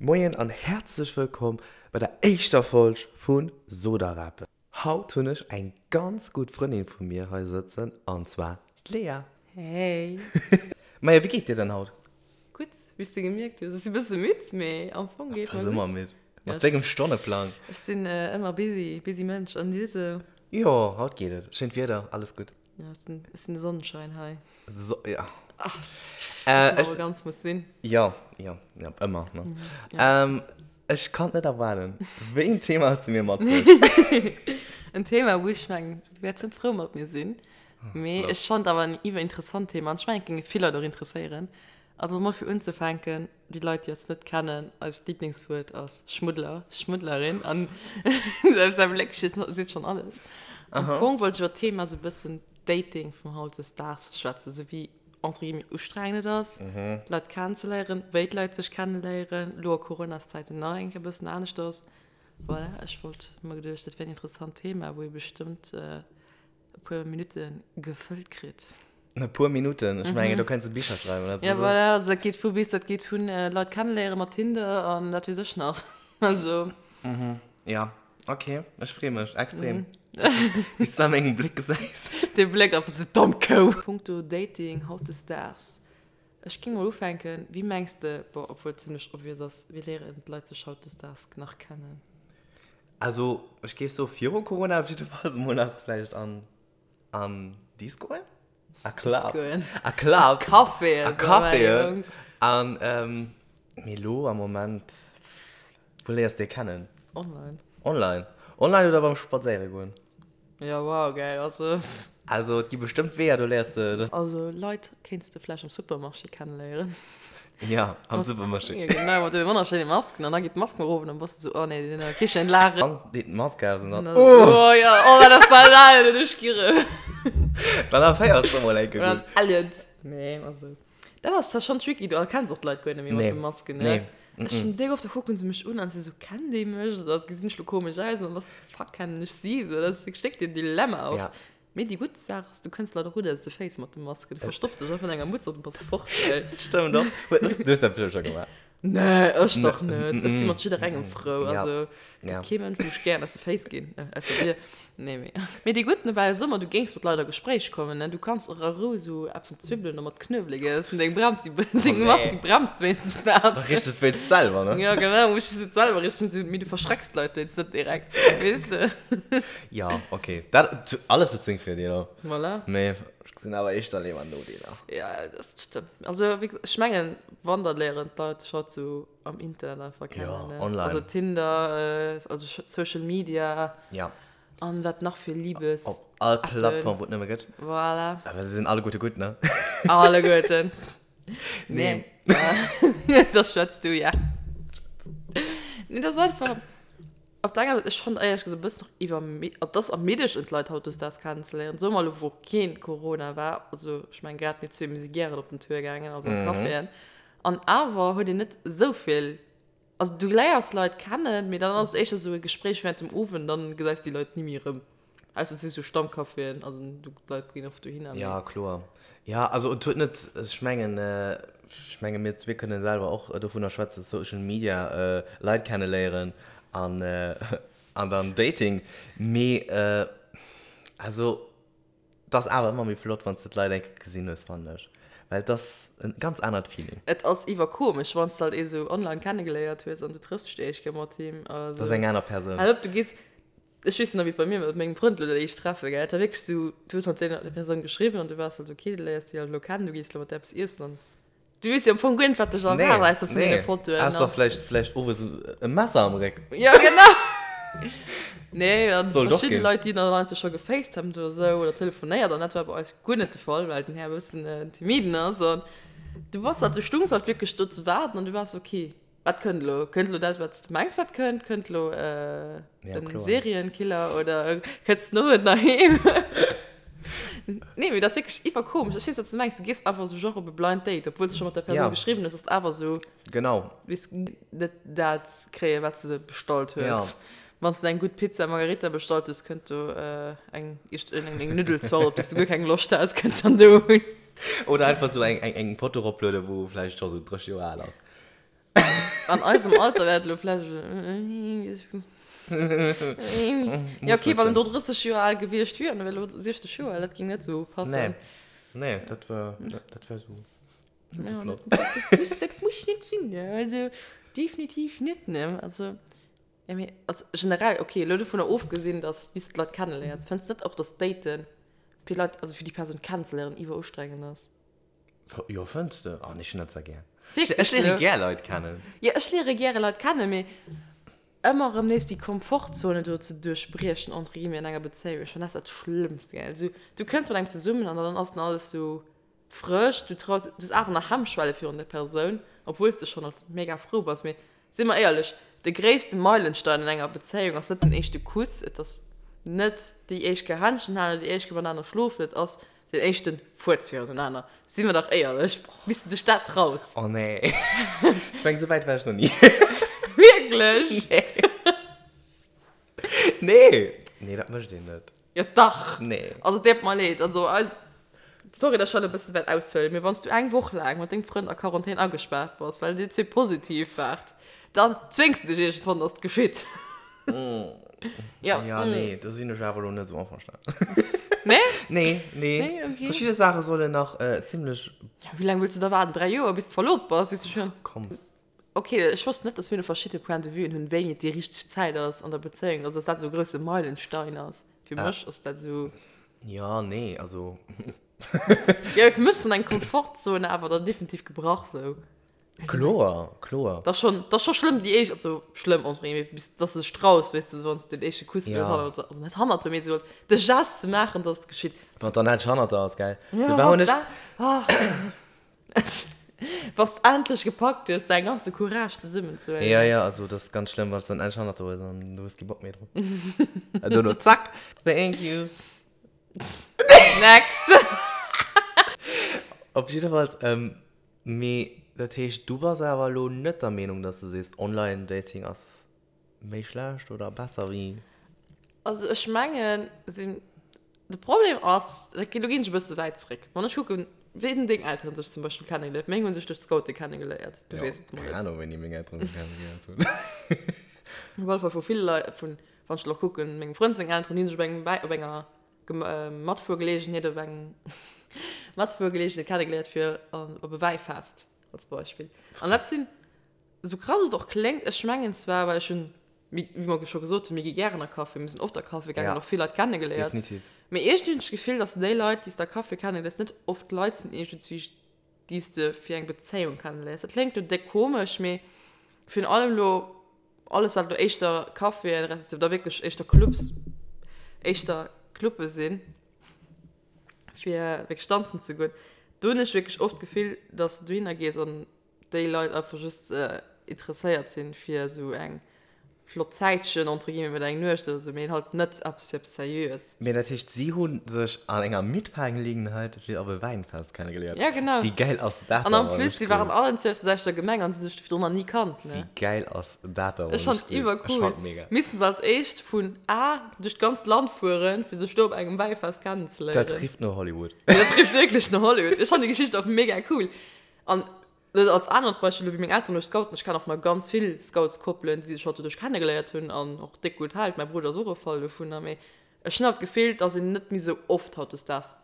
Moien an häerzlech wëllkomm bei der éischter Folg vu Sodarapen. Haut hunn ech eng ganz gutt Frëndin vu mir hei sëtzen an zwar d'Lea. Hey! Maja, wéi geet dir denn haut? Gutt, wéi s de gemierkt hues. Ech si bësse midd, mee am Fong geet mer gutt. Bass ëmmer midd mat dengem Stonneplang. Ech sinn ëmmer busy, busy Mënsch. An du sou? Jo, haut geet et. Schéint Wieder, alles gutt. Ja, et ass den Sonnenschein hei. So, ja. Ach, äh, ech, ganz muss sinn. Ja, ja, ja, ëmmer. Ne? Ja. Ähm, ech kann net erwaarden. Wéi en Thema hues du mir matbruecht? En Thema, wou ech mengen, du wäerts net frou mat mir sinn. Mee ech fand awer en iwwerinteressant Thema an ech mengen, et géinge vill Leit och interesséieren. Also mol fir unzefänken, déi Leit, déi eis net kennen, eist Lieblingswuert ass Schmuddler, Schmuddlerin an säi Bléck seet schonn alles. Am Fong wollt ech iwwer d'Thema sou e bëssen Dating vum hautdesdaags schwätzen, sou wéi entre guillemets ustrengend et ass, Leit kennenzeléieren, wéi d'Leit sech kenneléieren, elo a Coronaszäiten nach eng Kéier e bëssen anescht ass. Voilà, ech wollt mer geduecht, dat wär en interessant Thema, wou ee bestëmmt e puer Minutte gefëllt kritt. E puer Minutten? Ech mengen, do kéints de Bicher schreiwen. Also, ja, voilà, also dat geet vu bis, dat geet vun Leit kenneléiere mat Tinder an wat weess ech nach. Also. Mhm, ja, ok, ech freeë mech extrem. Wéi s de a mengem Bléck gesäis. Dee Bléck einfach sou, domm Kou! Punkto Dating hautdesdaags, ech géing mol ufänken, wéi mengs de, bon, obwuel et zimlech obvious ass, wéi léieren d'Leit sech hautdesdaags nach kennen? Also, ech géif soe viru Corona op jiddefalls emol nach vläicht an an Discoen, a Clubs, a Clubs, a Caféen, a Caféen. An mee elo am Moment, wou léiers de kennen? Online. Online. Online oder beim Spadséiere goen. Ja, wow, geil, also. Also, et gi bestëmmt Weeër, do léiers de dat. Also, Leit kéints de vläicht am Supermarché kenneléieren. Ja, am Supermarché. Ja, genau, mat deene wonnerschéine Masken. An da geet d'Mask mol erof an dann bass de sou, oh nee, deen an der Kichen lachen. An deet d'Mask aus an dann, oh! Oh ja, oh, wat ass dat al, den ech girre. Dann erféiers de mol eng Kéier gutt. Oder an Elliot. Nee, also. Dat ass zwar schonn tricky, du erkenns och d'Leit guer net méi mat de Masken, ne? Nee. Ech hunn déck oft, da kucken se mech un an si sou, Kennt ee mech? Oder gesinn ech lo komesch aus? An dann bass de sou, Fuck, kennen ech si? Sou, dat ass wierklech déck den Dilemma oft. Ja. Mee déi gutt Saach ass, du kënns Leit och gutt aus de Féiss mat de Masken. Du verstopps dech einfach an enger Mutz an du bass fort, well. Dat stëmmt och. Du hues dat bestimmt scho gemaach. Nee, ech dach net. Ech si mat jidderengem frou. Ja. Also, Ja. gëtt kee Mënsch, wou ech gären aus de Féiss ginn, ausser dir. Nee, mee. Mee déi gutt Nouvelle, so mer, du géings mat Leit a Gespréich kommen, ne? Du kanns och a Rou esou eppes mat Zwibbelen oder mat Knuewelek iessen. Deng Brems, déi, deng Oh, Mask, nee. déi bremst wéinstens dat. Da riechs de et wéinst selwer, ne? Ja, genau, muss ech et selwer richten, mee du verschrecks d'Leit wéinstens net direkt, weess de? Ja, okay. Dat, alles huet seng Virdeeler. Voilà. Mee ech gesinn awer éischter léiwer Nodeeler. Ja, dat stëmmt. Also, wéi gesot, ech mengen, wann, da léieren d'Leit sech haut sou am Internet einfach kennen. Ja, ne? online. Also Tinder, also Social Media. Ja. An wat nach fir Liebes. Op all Plattform, wou et nëmme gëtt. Voilà. Awer se sinn alleguerte gutt, ne? Alleguerten. Nee. Nee. Da schwätz du, ja. Nee, dat ass einfach. Op der enger Säit, ech fannen éierlech gesot e bëssen och iwwer, et ass ermiddegend d'Leit hautdesdaags kennenzeléieren, soe mer elo wou keen Corona war, also ech mengen grad mir zwee, mir si gären op den Tour gaangen, also an d'Caféen, an awer huet een net esou vill, also du léiers Leit kennen, mee dann ass et éischter esou e Gespréich während dem Owend, dann gesäis de déi Leit ni méi erëm. Ausser et si sou Stammcaféen, also d'Leit ginn oft dohinner. Ja, kloer. Ja, also et huet net, ech mengen, ech menge mir zwee kënne selwer och dovunner schwätzen, Social Media, Leit kenneléieren an an dann Dating. Mee also et ass awer ëmmer méi flott, wann s de d'Leit eng Kéier gesinn hues, fannen ech. Well et ass en ganz anert Feeling. Et ass iwwerkomesch, wann s de halt ee sou online kennegeléiert hues an du trëffs dech déi éischt Kéier mat him. Dat ass eng aner Persoun. Hal op, du gees Ech weess nach wéi et bei mir war mat mengem Frënd elo dat éischt Treffe gell, et war wierklech sou, du hues mat deene der Persoun geschriwwen an du waars halt ok, du léiers déi halt elo kennen, du gees elo mat där eppes iessen an du weess jo am Fong guer net wat dech erwaart ausser vun deene Fotoen an. Ausser vläicht vläicht owes e Messer am Réck. Jo genau. Nee an Sollt och verschidde ginn. Leit déi dann einfach scho gefacetimed oder sou oder telefonéiert an dat war bei eis guer net de Fall, well den Här e bëssen en timiden ass an du bass halt, du stungs halt wierklech do ze waarden an du waars ok. Wat kënnt elo? Kënnt elo dat, wat s de mengs, wat kënnt? Kënnt elo den Serienkiller oder kënns den Owend nach heem? Nee, mee dat ass wierklech iwwerkomesch. Ech weess, wat s de mengs. Du gees einfach esou genre op e Blind Date, obwuel s de scho mat der Persoun geschriwwen hues, ass et awer esou. Genau. Weess net dat kréien, wat s de bestallt hues. Wann s de eng gutt Pizza Margherita bestallt hues, kënnt do eng eng Nuddelzort, op déi s de guer keng Loscht has, kënnt dann do un. Oder einfach esou eng Foto eroplueden, wou vläicht scho sou 30 Joer al ass. An eisem Alter wär et elo vläicht. Ja, okay, wann en do 30 Joer al gewiescht wier an e wär elo 60 Joer al, dat géing net esou passen. Nee, nee, dat wär, dat wär esou net esou flott. Dat muss, dat muss net sinn, ne? Also definitiv net, ne? Also, ja, mee also generell, okay, elo dovunner ofgesinn, dass bis de d'Leit kenneléiers, fënns de net och, dass Daten fir Leit, also fir déi Persoun kennenzeléieren, iwwerustrengend ass? Jo, fënns de? Oh, nee, ech hunn dat zwar gär. Wierklech Ech léiere gär Leit kennen. Jo, ech léiere gäre Leit kennen, mee ëmmer erëm nees déi Komfortzone do ze duerchbriechen, entre guillemets, an enger Bezéiung, ech fannen dat dat Schlëmmst, gell. Also, du kënns mat engem zesummen an dann ass dann alles sou frësch, du traus, du hues awer nach Hemmschwelle virun der Persoun, obwuel s de schonn alt mega frou bass. Mee si mer éierlech, de gréisste Meilenstein an enger Bezéiung ass net den éischte Kuss, et ass net déi éischt Kéier Händchen halen oder déi éischt Kéier matenaner schlofen, et ass Den éischten Fuerz virunenaner. Si mer dach éierlech, bis de dech dat traus. Oh nee. Ech mengen, sou wäit war ech nach ni. Wierklech? Nee. Nee. Nee, dat mécht een net. Jo dach. Nee. Also et deet mer leed. Also eis, sorry, dass ech hatt e bëssen wäert aushuelen, mee wann s du eng Woch laang mat dengem Frënd a Quarantän agespaart bass, well dir zwee positiv waart, dann zwéngs de dech iergendwann, dass et geschitt. Ja, ja mm. nee, do sinn ech awer lo net sou einverstanen. Nee? Nee, nee. Nee, okay. Verschidde Saache sollen nach äh, zimmlech. Ja, wéi laang wëlls du da waarden? 3 Joer, bis du verlobt bass? Bis du schon. Komm. Okay, ech wosst net, dass mir do verschidde Point de Vuen hunn, wéini et déi richteg Zäit ass an der Bezéiung. Also, dass dat esou e grousse Meilenstein ass. Fir ah. mech ass dat esou. Ja, nee, also. Ja, fir mech ass dann eng Komfortzone awer dann definitiv gebrach sou. Kloer, kloer. Dat ass schonn, dat ass scho schlëmm déi éischt, also schlëmm entre guillemets, bis dass de dech traus, weess de, wann s de den éischte Kuss Ja. hannert, also net hannert der, mee esou de Gest ze maachen, dass et geschitt. Wann et dann endlech hannert der ass, gell? Ja, Do war wann hunn s ech. dat, ah. Wann s d'endlech gepackt hues, däin ganze Courage zesummenzehuelen. Ja, ja, also dat ass ganz schlëmm, wann s dann endlech hannert der hues an du hues kee Bock méi drop. An dono zack, thank you. Next! Op jiddefalls, mee dat heescht, du bass awer elo net der Meenung, dass du sees, Online-Dating ass méi schlecht oder besser wéi? Also ech mengen, sinn, de Problem ass, dat geet, elo ginn ech e bësse wäit zréck, wann ech kucken, wéi hunn deng Elteren sech zum Beispill kennegeléiert? Meng hu sech duerch d'Scoute kennegeléiert, du Jo, weess et mol keng net. Ahnung, wéini meng Elteren sech kennegeléiert hunn. Op alle Fall vu ville Leit, vun, wann ech elo kucken, mengem Frënd seng Elteren, déi hunn sech op engem Wäi, op enger Matfuergeleegenheet op eng Matfuergeleegenheet kennegeléiert fir op e Wäifest als Beispill. An dat sinn, esou krass et och kléngt, ech mengen zwar, well ech hunn, wéi mer scho gesot hunn, mir gi gären a Café, mir sinn oft a Café gaangen, och vill Leit kennegeléiert. Definitiv. Mee iergendwéi hunn ech d'Gefill, datt déi Leit, déi s de a Café kenneléiers, net oft Leit sinn iergendwéi, déi s de fir eng Bezéiung kenneléiers. Dat kléngt elo déck komesch, mee virun allem elo alles wat elo éischter Caféen respektiv da wierklech éischter Clubs, éischter Clubbe sinn, fir wierklech danzen ze goen, do hunn ech wierklech oft d'Gefill, dass du dohinner gees an déi Leit einfach just interesséiert sinn, fir esou eng flott Zäitchen, entre guillemets, mat eng Nuecht oder sou, mee halt net eppes fir eppes Seriöes. Mee dat heescht, si hu sech an enger Mitfahrgelegenheit fir op e Wäinfest kennegeléiert. Ja, genau. Wéi gäil ass dat An da en wann plus, ech si waren cool. allen zwou aus der selwechter Gemeng an si hu sech virdrun nach ni kannt, ne? Wéi gäil ass dat da Ech wann ech fand cool. Ech iwwercool. fand mega. Missten se als éischt vun A duerch d'ganzt Land fueren, fir sech do op engem Wäifest kennenzeléieren. Dat rifft no Hollywood. Dat rifft wierklech no Hollywood. Ech fand déi Geschicht och mega cool. An Lo als anert Beispill, elo wéi meng Elteren duerch Scouten, ech kennen och nach ganz vill Scoutskoppelen, déi sech halt doduerch kennegeléiert hunn an och déck gutt hält, mäi Brudder ass och e Fall dovunner, mee ech hunn awer d'Gefill, dass een net méi sou oft hautdesdaags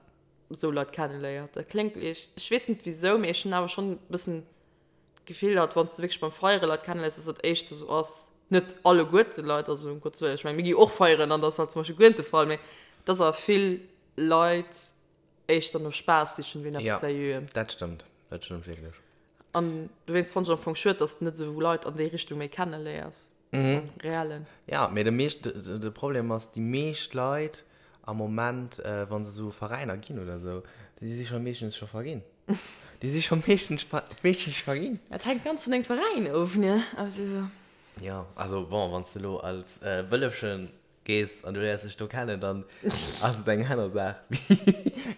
sou Leit kenneléiert. Dat kléngt ierg, ech weess net wisou, mee ech hunn awer schonn e bëssen d'Gefill, halt wann s de wierklech beim Feiere Leit kenneléiers, dass dat éischter sou ass, net alleguerte Leit, also um Gottes Wëllen, ech mengen mir gi och feieren an dat ass halt zum Beispill guer net de Fall, mee dass awer vill Leit éischter no Spaass sichen wéi no eppes Seriöem. Ja, dat stëmmt. Dat stëmmt wierklech. An dowéinst fannen ech am Fong schued, dass de net esou Leit an déi Richtung méi kenneléiers. Am Reellen. Ja, mee de meescht, de Problem ass, déi meescht Leit am Moment, wa se esou Veräiner ginn oder esou, déi si scho meeschtens scho verginn. Déi si scho meeschtens, meeschtens verginn. Dat hänkt ganz vun dengem Veräin of, ne? Also. Jo, also bon, wann s de elo als Wëllefchen gees an du léiers dech do kennen, dann ass et eng aner Saach.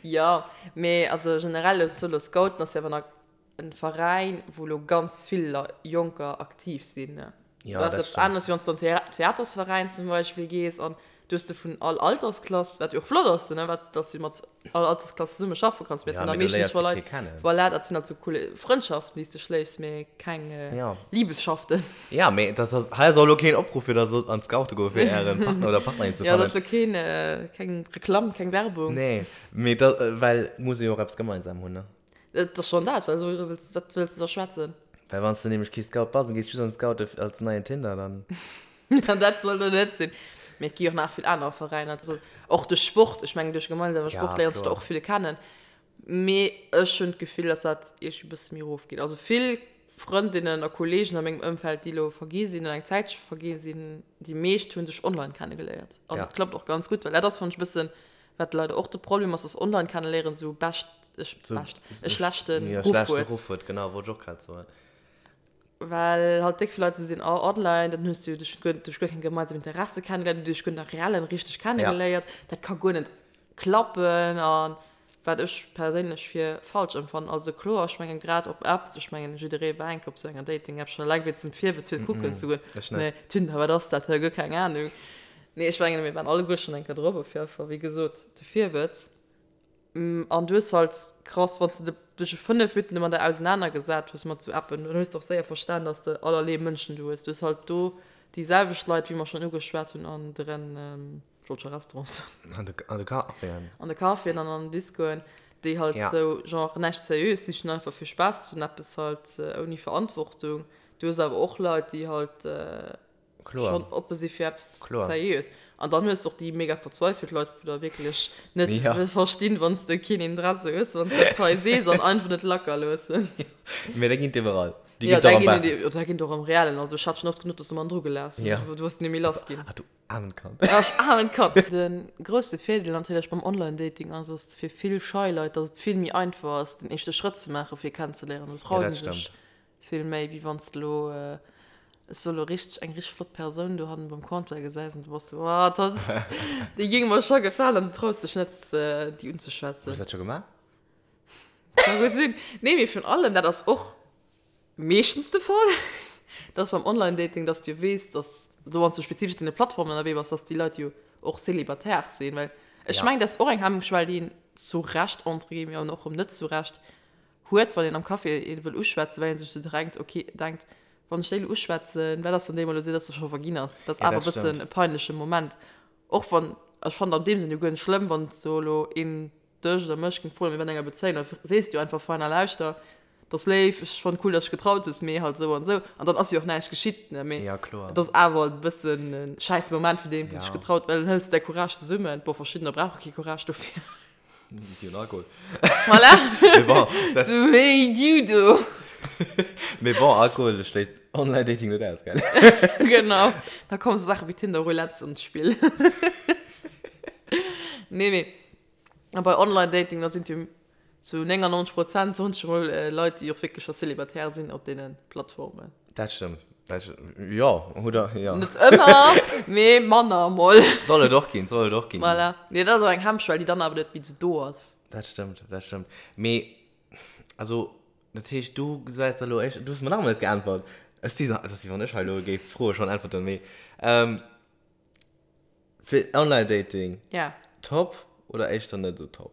Jo, mee also generell elo solo Scouten ass jo awer nach en Veräin, wou elo ganz vill Jonker aktiv sinn. Jo, Dat ass dat eppes stëmmt. aneres, wéi wann s du an Theatersveräin zum Beispill gees an. Du hues de vun all Altersklass, wat jo och flott ass, ne, wat, dass du mat all Altersklass zesumme schaffe kanns, mee et Ja, sinn da mee du meeschtens léiers scho de Leit, kee kennen. voilà, dat sinn halt sou cool Frëndschaften, déi s de schléiss, mee keng Ja. Liebesschaften. Ja, mee dat ass, hei ass och elo keen Opruff fir der sollt an d'Scoute goe fir ären Partner oder Partnerin ze Ja, dat fannen. ass elo keen, keng Reklamm, keng Werbung. Nee, mee da, well et muss ee jo och eppes gemeinsam hunn, ne? Et ass schonn dat, well esou wëlls, wat wëlls de da schwätzen? Well wann s de nämlech kee Scout bass an gees just an d'Scoute als neien Tinder, dann. An dat soll do net sinn. Mee et gi och nach vill aner Veräiner. Also och de Sport, ech mengen duerch gemeinsame Ja, Sport léiers de kloer. och vill kennen. Mee ech hunn d'Gefill, dass dat iergendwéi e bësse méi erofgeet. Also vill Frëndinnen a Kolleegen a mengem Ëmfeld, déi elo vergi sinn oder eng Zäitche vergi sinn, déi meescht hu sech online kennegeléiert. An Ja. dat klappt och ganz gutt, well dat ass, fannen ech, e bëssen, wat leider och de Problem ass, dass online kenneléieren esou bescht, So, bescht, e schlechte ja, Ruff schlechte huet. Ruff huet, genau, wollt ech och grad soen. Well halt déck vill Leit esou sinn, oh online, dann hues du jo dech guer, duerch guer keng gemeinsam Interesse kennegeléiert, du dech guer net reellen richteg kennegeléiert, dat ka guer net klappen a wat ech perséinlech fir falsch empfannen. Also kloer, ech mengen grad op Apps, ech mengen jidderee war eng Kéier op esou enger Dating-App, scho eleng wéinst dem Virwëtz fir kucken ze goen, Ech net. nee, Tinder, wat ass dat, guer keng Anung. Nee, ech mengen mir waren alleguer schonn eng Kéier drop, op jidde Fall, wéi gesot, de Virwëtz. An du hues halt krass, wann s de dech 5 Minutten domadder ausenanergesat hues mat sou Appen, dann hues de och séier verstan, dass de allerlee Mënschen do hues. Du hues halt do déi selwecht Leit, wéi mer schonn ugeschwat hunn, an deren, ech wollt scho Restaurant soen. An de, an de Caféen. An de Caféen an an den Discoen, déi halt Ja. sou genre näischt Seriöes sichen, einfach fir Spaass ze hunn, eppes halt ouni Verantwortung. Du hues awer och Leit, déi halt Kloer. schonn oppe si fir eppes Kloer. Seriöes. An dann hues de och déi mega verzweifelt Leit, wou der wierklech net Ja. verstinn, wann s de keen Interesse hues, wann s de dat hei sees an einfach net lacker loossen. Mee dat ginn et iwwerall. Déi Ja, ginn et och da am ginn Bar. et déi, da ginn et och am Reellen. Also ech hat schonn oft genuch, dass se mer an dru gelaass hunn. Ja. Du hues net méi lass ginn. Ah, du aarmt Kand. Ja, ech aarmt Kand. De grousse Virdeel natierlech beim Online-Dating ass, ass fir vill schei Leit, dass et vill méi einfach ass, den éischte Schrëtt ze maachen, fir kennenzeléieren. Do Ja, traut dat een sech stëmmt. Vill méi wéi wanns de lo, ech soe lo richteg, eng richteg flott Persoun dohannen beim Comptoir gesäis an du bass sou, oh dat, déi géing mer scho gefalen an du traus dech net déi unzeschwätzen. Hues dat scho gemaach? Ka gutt sinn. Nee, mee virun allem, dat ass och meeschtens de Fall, dass beim Online-Dating, dass du jo weess, dass lo wanns du spezifesch op deene Plattformen ënnerwee bass, dass déi Leit jo och célibataire sinn, well ech Ja. mengen, dat ass och eng Hemmschwell, déi een zu Recht, entre guillemets, an och erëm net zu Recht, huet, wann een am Café een wëll uschwätzen, well een sech sou drenkt, ok, denkt, wann ech déi elo uschwätzen, wat ass, wann déi mol elo seet, dass se scho verginn ass? Dat ass Ja, awer dat e bëssen stëmmt. e peinleche Moment. Och wann, ech fannen an deem Sënn jo guer net schlëmm, wann sou elo een dech oder mech géing froen, mir wären an enger Bezéiung, da sees de jo einfach fein a lauschter, 't ass léif, ech fannen cool, dass dech getraut hues, mee halt esou an esou. An dann ass jo och näischt geschitt, ne, mee Ja, kloer. et ass awer e bëssen e schäisse Moment fir deen, wou sech Ja. getraut, well dann hëls de däi Courage zesummen. Bon, verschiddener brauche kee Courage dofir. Déi hunn Alkohol. Voilà. Mee bon, dat. Sou wéi du do. Mee bon, Alkohol schléisst Online-Dating net aus, gell? Genau. Da kommen sou Saache wéi Tinder-Roulette an d'Spill. Nee, mee a bei Online-Dating, da sinn jo zu 99 Prozent, soen ech emol, Leit, déi och wierklech scho célibataire sinn op deene Plattformen. Dat stëmmt. Dat, jo, oder, jo. Net ëmmer, mee manner emol. Soll et och ginn, soll et och ginn. Voilà. Nee, dat ass awer eng Hemmschwell, déi dann awer net méi esou do ass. Dat stëmmt, dat stëmmt. Mee, also, dat heescht, du gesäis da elo éischt, du hues mer nach ëmmer net geäntwert. Ech si, et ass wéi wann ech hei elo géif d'Froe schonn äntwerten, mee, fir Online-Dating, Ja. top oder éischter net esou top?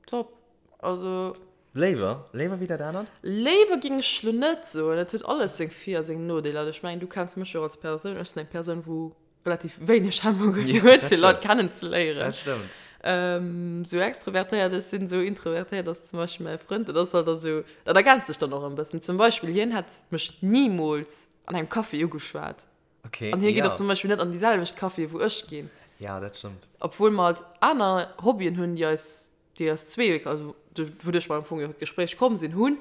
Top. Also. Léiwer? Léiwer wéi dat anert? Léiwer géing ech lo net soen. Et huet alles seng Vir a seng Nodeeler. Ech mengen, du kenns mech jo och als Persoun. Ech sinn eng Persoun, wou relativ wéineg Hemmungen huet, fir Leit kennenzeléieren. Dat stëmmt. Sou extrovertéiert ech sinn, sou introvertéiert ass zum Beispill mäi Frënd. Dat ass halt da sou, dat ergänzt sech dann och en bëssen. Zum Beispill, hien hätt mech nimools an engem Café ugeschwat. Okay, An hie geet ja. och zum Beispill net an déi selwecht Caféë wou ech ginn. Ja, dat stëmmt. Obwuel mer halt aner Hobbyen hunn, déi eis, déi eis zwee, also wouduerch mer am Fong jo an d'Gespréich komm sinn, hunn,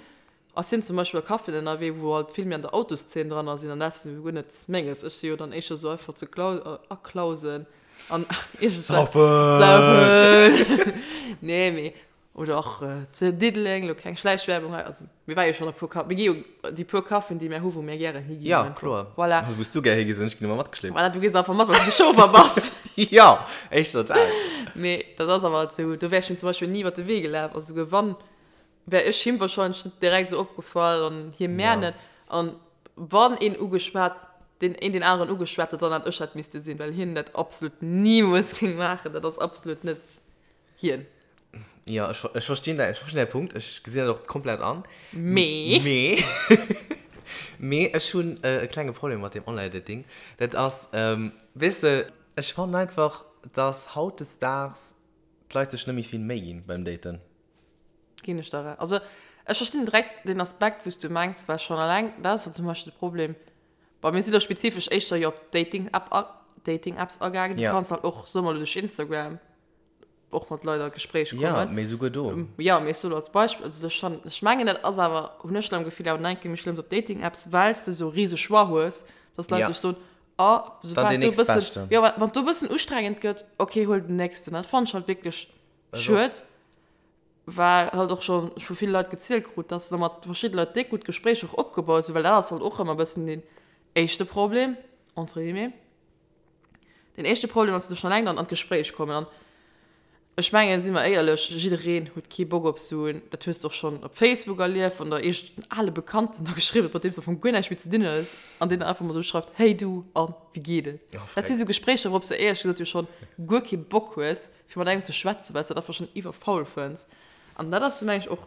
ass hien zum Beispill a Caféen ënnerwee, wou halt vill méi an der Autoszeen dran sinn an dat ass jo guer net menges. Ech si jo dann éischter sou einfach zu Klau, aklausen an iergendwat. Saufen! Saufen! Nee, mee Oder och zu Diddeleng, elo keng Schläichwerbung hei, also mir ware jo schonn e puer Ka-, mir gi jo déi puer Caféen, déi mär hu wou mär gären higinn. Ja, kloer. Voilà. Also wou s du gär higis an ech ginn ëmmer matgeschleeft. Voilà, du gees einfach mat, well s du de Chauffer bass. Jo, éischter dat. Mee dat ass awer halt esou, do wär ech him zum Beispill ni iwwer de Wee gelaf, also souguer wann, wär ech him wahrscheinlech net direkt esou opgefall an hie mär Ja. net. An wann een ugeschwat. deen een deen aneren ugeschwat huet, dann hat ech dat misste sinn, well hien dat absolut nimools géing maachen. Dat ass absolut net hien. Jo, ech, ech verstinn däi, ech verstinn däi Punkt. Ech gesinn dat och komplett an. Mee. Mee, mee ech hunn e klenge Problem mat deem Online-Dating. Dat ass, weess de, ech fannen einfach, dass hautdesdaags d'Leit sech net méi vill Méi ginn beim Daten. Ginn ech der Recht. Also ech verstinn direkt den Aspekt, wou s du mengs, well schonn eleng dat ass jo zum Beispill de Problem, bon, mir si lo spezifesch éischter jo op Dating-App a Dating-Apps agaangen, du Ja. kanns halt och, soe mer lo duerch Instagram och mat Leit a Gespréich Ja, kommen. mee souguer do. Jo, mee ech soe lo als Beispill, also ech fannen, ech mengen dat ass awer, hunn ech lo am Gefill, awer nach eng Kéier méi schlëmm op Dating-Apps, well s de esou rise Choix hues, dass d'Leit Ja. sech soen, oh, Dann soubal deen do e bëssen, nächstbeschten. jo, wann do e bëssen ustrengend gëtt, okay, huel den nächsten. Dat fannen ech halt wierklech Schued, well halt och schonn ech vu ville Leit gezielt krut, dass se mat verschidde Leit déck gutt Gespréicher och opgebaut hunn, well dat ass halt och ëmmer e bëssen deen éischte Problem, entre guillemets, deen éischte Problem ass, dass se schonn eleng dann an d'Gespréich kommen. An ech mengen, si mer éierlech, jiddereen huet kee Bock op esou en, dat hues de och schonn op Facebook erlieft, wann der iergend en ale Bekannten da geschriwwen huet, mat deem s de am Fong guer näischt méi ze dinn hues, an deen dann einfach mol esou schreift, Hey du, an wéi geet et? Dat si sou Gespréicher, wourop s de éierlech gesot jo schonn guer kee Bock hues. fir mat engem ze schwätzen, well s dat einfach schonn iwwerfaul fënns. An dat ass, meng ech, och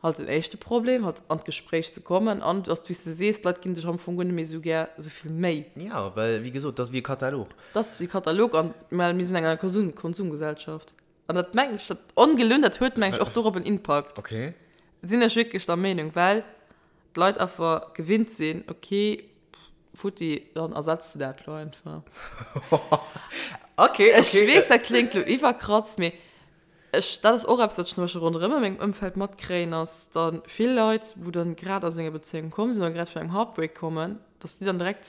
halt den éischte Problem, halt an d'Gespréich ze kommen. An du ass, wéi s de sees, d'Leit gi sech am Fong guer net méi esou gär esou vill Méi. Jo, well, wéi gesot, dat ass wéi e Katalog. Dat ass wéi e Katalog an, well mir sinn eng Konsum, Konsumgesellschaft. An dat mengen ech, dat ongelunn, dat huet, meng ech, och dorop en Impakt. Okay. Sinn ech wierklech der Meenung, well d'Leit einfach gewinnt sinn, okay, Futti, dann ersetz de dat lo einfach. Okay, okay. Ech weess, dat kléngt lo iwwerkrass, mee ech, dat ass och eppes, wat ech zum Beispill ronderëm a mengem Ëmfeld matkréien, ass dann vill Leit, wou dann grad aus enger Bezéiung komm sinn oder grad vun engem Heartbreak kommen, dass déi dann direkt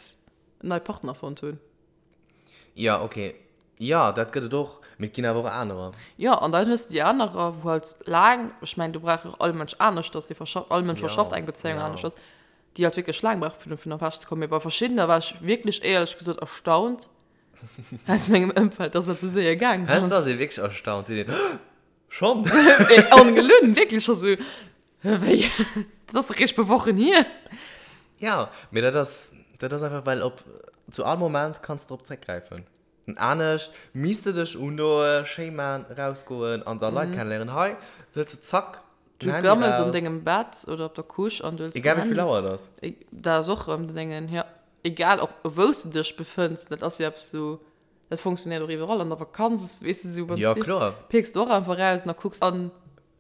en neie Partner fonnt hunn. Ja, okay. Jo, dat gëtt et och, mee et ginn awer och anerer. Jo, an dann hues de déi anerer, wou halt laang, ech mengen, do brauch jo och all Mënsch aneschters, dee verschafft, all Mënsch Jo, verschafft eng Bezéiung jo. aneschters, déi halt wierklech laang brauche fir dovun ewech ze kommen. Mee bei verschiddener war ech wierklech éierlech gesot erstaunt aus mengem Ëmfeld, dass dat esou séier gaangen Heiansdo ass. ass ee wierklech erstaunt, seet een, Schonn? Mee ongelunn, wierklech scho sou, Wéi? Dat ass eréischt e puer Wochen hier. Jo, mee dat ass, dat ass einfach, well op, zu all Moment kanns de drop zréckgräifen. Anescht misst de dech undoen, schéi man, rausgoen an da Leit kennenléieren. Hei hëls de zack Du den Handy gammels an raus. dengem Bett oder op der Couche an du hëls den Egal wéi vill Handy. Auer et ass. Dat ass och erëm den Déngen, jo. Egal och wou s de dech befënns, dat ass jo eppes sou, dat funktionéiert och iwwerall. An der Vakanz, weess de, sou wann s Jo, de kloer. pickst du och einfach raus an da kucks an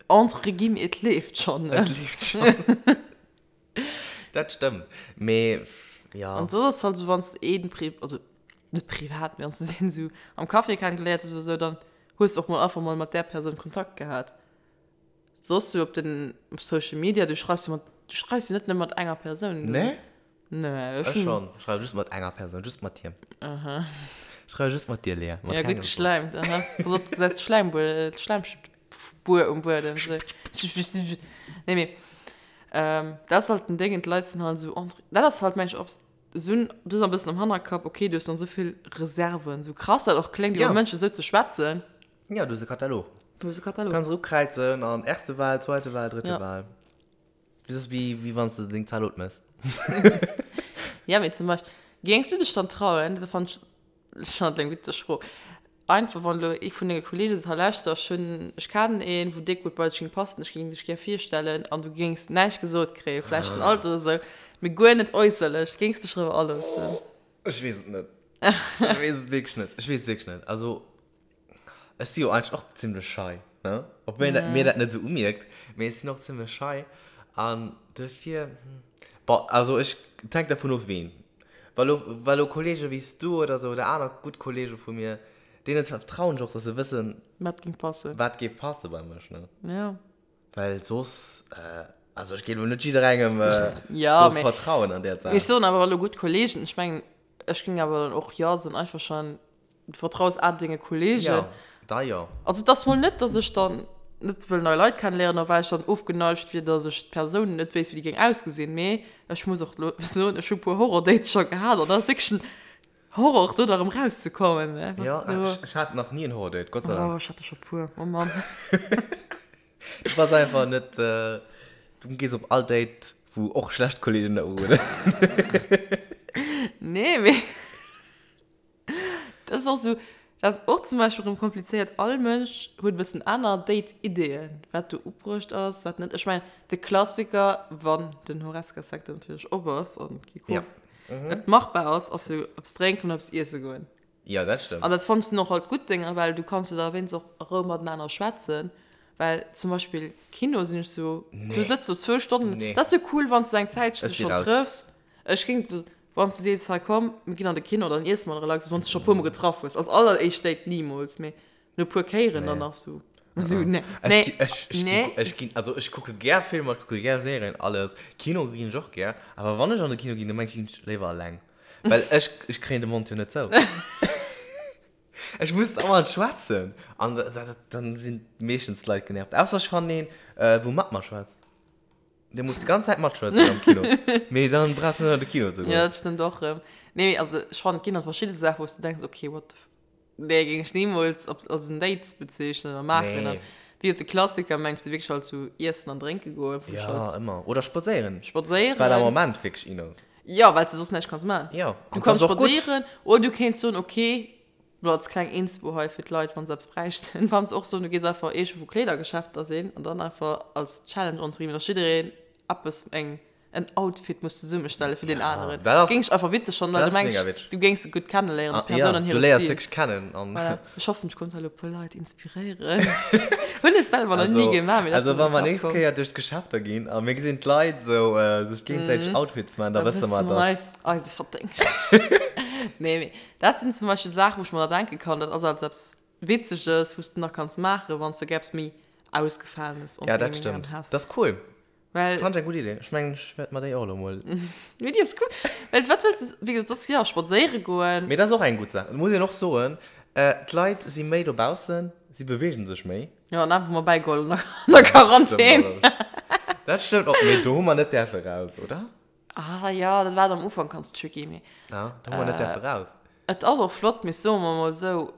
entre guillemets et leeft schonn, ne? Et leeft schonn. Dat stëmmt, mee ja. An soss ass halt esou, wann s de een pri-, also net privat, mee wann s de een esou am Café kennegeléiert hues oder esou, dann hues de och mol einfach mol mat där Persoun Kontakt gehat. Soss sou op den, op Social Media, du schreifs jo mat, du schreifs jo net nëmme mat enger Persoun. Nee? Nee, ech Ech schonn. Ech schreiwe just mat enger Persoun, just mat him. Aha. Ech schreiwe just mat dir, Lea. Mat Ja, gutt kengem soss. geschläimt, aha. Pass op, du gesäis d'Schläimbuer, d'Schläimspuer um Buedem. Nee, mee dat ass halt den Déngen, d'Leit sinn halt esou entre, dat ass halt, meng ech, och esou, du hues e bëssen am Hannerkapp, okay, du hues dann esou vill Reserven, esou krass dat och kléngt, iwwer Ja. Mënschen esou ze schwätzen. Ja, du hues e Katalog. Du hues e Katalog. Kanns ukräizen an erste Wahl, zweite Wahl, dritte Ja. Wahl. Dat ass wéi, wéi wann s de deng Zalot méchs. Ja, mee zum Beispill, géings du dech dann trauen, dat fannt ech, ech fannen dat eng witzeg Fro, einfach wann elo ee vun denge Kolleege seet, hei lauschter, ech hunn, ech kennen een, wou déck gutt bei dech géing passen, ech géing dech gär virstellen, an du géings näischt gesot kréien, vläicht den Alter oder esou, mee guer net äusserlech, géings dech driwwer aloossen? Ech weess et net. Ech weess et wierklech net. Ech weess et wierklech net. Also, Ech si jo eigentlech och zimlech schei, ne? Obwuel een dat, mir dat net esou umierkt, mee ech sinn och zimlech schei an duerfir, bon, also ech, et hänkt dervun of ween. Wa lo, wa lo Kollege wéi s du oder sou oder aner gutt Kollege vu mir, deenen vertrauen ech och, dass se wëssen, Wat géing passen. wat géif passe bei mech, ne? Ja. Well soss, also ech géif lo net jidderengem Ja, do mee vertrauen an där Saach. ech soen awer, wa lo gutt Kollegen, ech mengen, ech géing awer dann och jo soen, einfach schon, Du vertraus a denge Kollegen. Jo, da jo. Also et ass mol net, dass ech dann net wëll nei Leit kennenléieren a well ech dann ofgeneigt wier, dass ech d'Persoun net wéisst, wéi déi géing ausgesinn. Mee ech muss och elo soen, ech hu puer Horror-Dates scho gehat an dat ass wierklech en Horror, do da rëm rauszekommen. Jo, ech hat nach ni en Horror-Date, Gott sei Dank. Oh, ech hat der scho puer, oh Mann. Du bass einfach net, du gees op all Date, wou och schlecht Kollegen der urueden. Nee. Nee, mee dat ass och sou, dat ass och zum Beispill erëm komplizéiert. All Mënsch huet e bëssen aner Date-Ideeën, wat do ubruecht ass, wat net. Ech mengen, de Klassiker, wann den Horesca-Secteur natierlech op ass an ja. et machbar ass, ass jo eppes drénken oder eppes iesse goen. Jo, dat stëmmt. An dat fannen ech sinn och halt gutt Dénger, well du kanns jo da wéinst och a Rou matenaner schwätzen. Well zum Beispill Kino sinn ech sou, du sëtz do zwou Stonnen, dat ass jo cool, wann s du eng Zäitchen dech schonn trëffs. Ech géing, wann s du sees, hei komm, mir ginn an de Kino, dann iesse mer relax, wann s du scho e puermol getraff hues. Als alleréischt Date nimools, mee no e puer Kéieren dann nach sou. Du, nee, nee, nee. Ech ginn, also ech kucke gär Filmer, ech kucke gär Serien, alles. Kino ginn ech och gär, awer wann ech an de Kino ginn, da mengen ech, ginn ech léiwer eleng. Well ech, ech kréien de Mond jo net zou. Ech muss dauernd schwätzen. An dann sinn meeschtens d'Leit genervt. Ausser ech fannen een, wou mat mer schwätzt. Dee muss déi ganz Zäit matschwätzen am Kino. Mee dann brauchs du net an de Kino ze goen. Jo, dat stëmmt och erëm. Nee, mee also ech fannen, et ginn halt verschidde Saachen, wou s du denks, okay, what the f. Déi géing ech nimools op als en Date bezeechnen oder maachen. Nee. Wéi et de Klassiker mengs du wierklech halt sou iessen an drénke goen, wou ech Ja, halt ëmmer. Oder spadséieren. Spadséieren. Wat am Moment wierklech in ass. Jo, well s de soss näischt kanns maachen. Jo, Du an kanns dat ass och gutt. spadséieren oder du kéints soen, okay, lo als kleng Inspo hei fir d'Leit, wann se eppes bräichten, kanns och soen, du gees einfach iergendwou Kleedergeschäfter sinn an dann einfach als Challenge onzeginn, dass jiddereen eppes, eng en Outfit muss zesummestellen fir den aneren. Dat ass, Géing ech einfach witzeg fannen, well dat du ass mega mengs, witzeg. du géings se gutt kenneléieren, Ah, déi Persoun ja, an du hire léiers Stil. wierklech kennen an. Voilà. Ech hoffen, ech konnt hei elo e puer Leit inspiréieren. Hunn ech selwer nach ni Also, gemaach, mee dat ass also mir wa an mer de Kapp nächst komm. Kéier duerch d'Geschäfter ginn a mir gesinn d'Leit esou sech géingesäiteg Outfits maachen, da Da wësse wësse mer, mer dass. eis, eise Verdéngscht. Nee, mee dat sinn zum Beispill Saachen, wou ech mer da denke kann, dat ass als eppes Witzeges, wou s de nach kanns maachen, wann s de gär eppes méi Ausgefalenes Ja, dat stëmmt. has. Dat ass cool. Well. Fand ech eng gutt Idee. Ech mengen, ech wäert mer déi och elo mol. Mee déi ass cool. Well wat wëlls de, wéi gesot, soss, jo, spadséiere goen. Mee dat ass och eng gutt Saach. Et muss een och soen, d'Leit si méi dobaussen, si beweegen sech méi. Jo, an awer hu mer bäigeholl an der Quarantän. Dat stëmmt och. Mee do hu mer net däerfe raus, oder? Ah jo, dat war am Ufank ganz tricky, mee. Ja, do hu mer net däerfe raus. Et ass och flott, mee soe mer mol esou,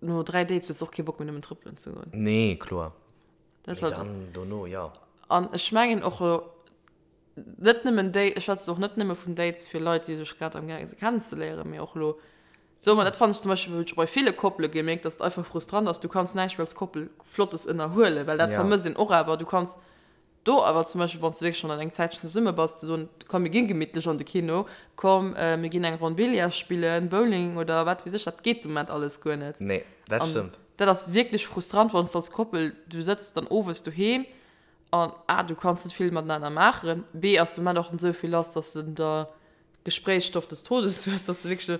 no 3 Dates hues de och kee Bock méi nëmmen trëppelen ze goen. Nee, kloer. Dat Mee dann dono, jo. An ech mengen och elo net nëmmen déi, ech schwätzen och net nëmme vun Dates fir Leit, déi sech grad amgaange si kennenzeléieren, mee och elo, soe mer, dat fannen ech zum Beispill, hunn ech bei ville Koppele gemierkt, dass et einfach frustrant ass, du kanns näischt méi als Koppel Flottes ënnerhuelen, well dat Ja. vermësst een och awer. Du kanns do awer zum Beispill, wann s de wierklech schonn an eng Zäitchen zesumme bass, ze soen, komm mir gi gemittlech an de Kino, komm mir ginn eng Ronn Billard spillen, Bowling oder wat weess ech, dat geet de Moment alles guer net. Nee, dat An stëmmt. Dat ass wierklech frustrant, wann s de als Koppel, du sëtz dann owes doheem an A, du kanns net vill matenaner maachen, B, ass de Moment och net esou vill lass, dass de der Gespréichsstoff des Todes hues, dass de wierklech,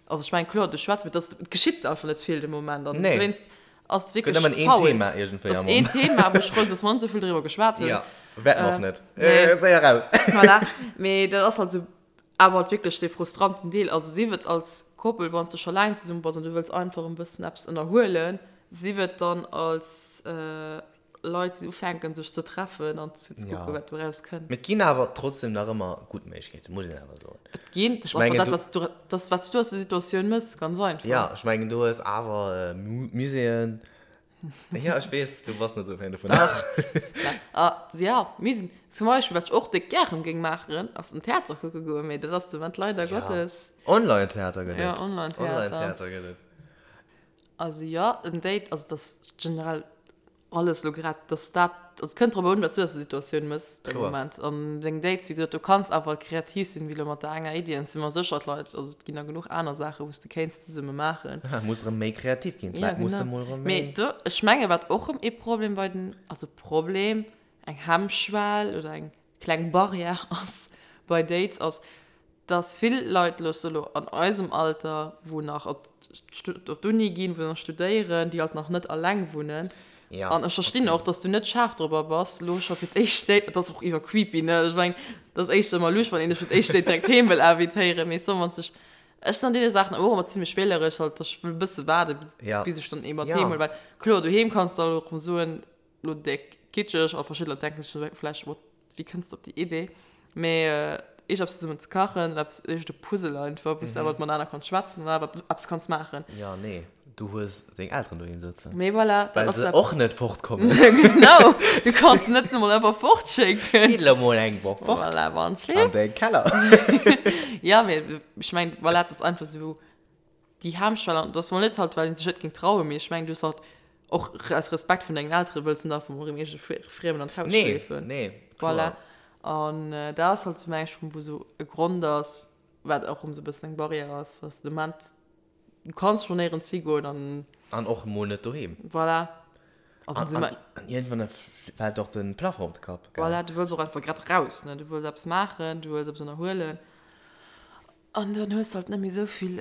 also ech mengen, kloer, du schwätz, mee dass, et geschitt einfach net vill de Moment an Nee. dowéinst ass et Gëtt wierklech nëmmen een faul. Thema iergendwéi Dat am ass een Moment. Thema, wou ech frou sinn, dass mer net esou vill driwwer geschwat hunn. Ja, wäerte mer och net. Nee. Séier raus. Voilà, mee dat ass halt esou Awer halt wierklech dee frustranten Deel, also sief et als Koppel, wann s de scho laang zesumme bass an du wëlls einfach en bëssen eppes ënnerhuelen, sief et dann als Leit, déi ufänken sech ze treffen an ze kucken, wat doraus kënnt. Mee et ginn awer trotzdem nach ëmmer gutt Méiglechkeeten, muss een awer soen. Et ginn, dat ass einfach dat, wat s du, dat ass, wat s du aus der Situatioun méchs, ganz einfach. Jo, ech mengen, du hues awer Muséeën, Ja, ech weess, du bass net esou Fan dovun. Dach. Ah, ja, mir sinn zum Beispill, wat ech och déck gären géing maachen, ass den Theater kucke goen, mee dat ass de Moment leider Ja. Gottes. Online-Theater gëtt et. Ja, Online-Theater. Online-Theater gëtt et. Also jo, en Date, also dat ass generell alles elo grad, dass dat, also et kënnt drop un, wat s du aus der Situatioun méchs de Kloer. Moment. An deng Dates, wéi gesot, du kanns awer kreativ sinn, wéi elo mat der enger Iddi, an ech si mer sécher, d'Leit, also et ginn der genuch aner Saachen, wou s de kéints zesumme maachen. Ja, muss erëm méi kreativ ginn. Ja, D'Leit musse genau. mol erëm méi. Mee do, ech menge wat och erëm ee Problem bei den, also Problem, eng Hemmschwell oder eng kleng Barrière ass bei Dates, ass, dass vill Leit elo, elo an eisem Alter, wou nach op d'Uni ginn, wou nach studéieren, déi halt nach net alleng wunnen. Ja, An ech verstinn okay. och, dass du net schaarf dorobber bass, elo scho fir d'éischt Date, dat ass och iwwer creepy, ne? Ech mengen, dat ass éischter emmer lusch, wann een dech fir d'éischt Date direkt heem wëll invitéieren, mee soen, wann s dech Ech sinn an deene Saachen och ëmmer zimlech wähleresch, halt, dass ech wëll e bësse waarde Ja. bis ech dann ee mat Ja. heem huelen, well kloer, doheem kanns de alt och erëm soen, lo déck kitscheg, a verschidde Leit denken sech vläicht, what, wéi kënns de op déi Idee, mee eescht eppes zesummen ze kachen, eppes, eescht e Puzzle einfach, wou s de awer matenaner kanns schwätzen an awer eppes kanns maachen. Ja, nee. Du hues deng Elteren doheem sëtzen. Mee voilà, dat ass Well se och net fortkommen. Genau, du kanns se net emol einfach fortschécken. Gitt elo mol eng Woch fort. Voilà, wann et An de Keller. Ja, mee ech mengen, voilà, dat ass einfach esou déi Hemmschwell. An dat ass mol net halt, well een sech net géing trauen, mee ech mengen, du hues halt och aus Respekt vun dengen Eltere wëlls du net einfach mol erëm iergende Friemen an d'Haus schleefen. Nee, nee, kloer. Voilà. An dat ass halt esou, meng ech, wou esou e Grond ass, wat och erëm esou e bëssen eng Barrière ass, dass de Moment Du kanns schon néierens higoen an. An och emol net doheem. Voilà. Also an, an, an iergendwann fält och de Plafond op de Kapp. Gell? Voilà, du wëlls och einfach grad raus, ne? Du wëlls eppes maachen, du wëlls eppes ënnerhuelen. An dann hues de halt net méi esou vill.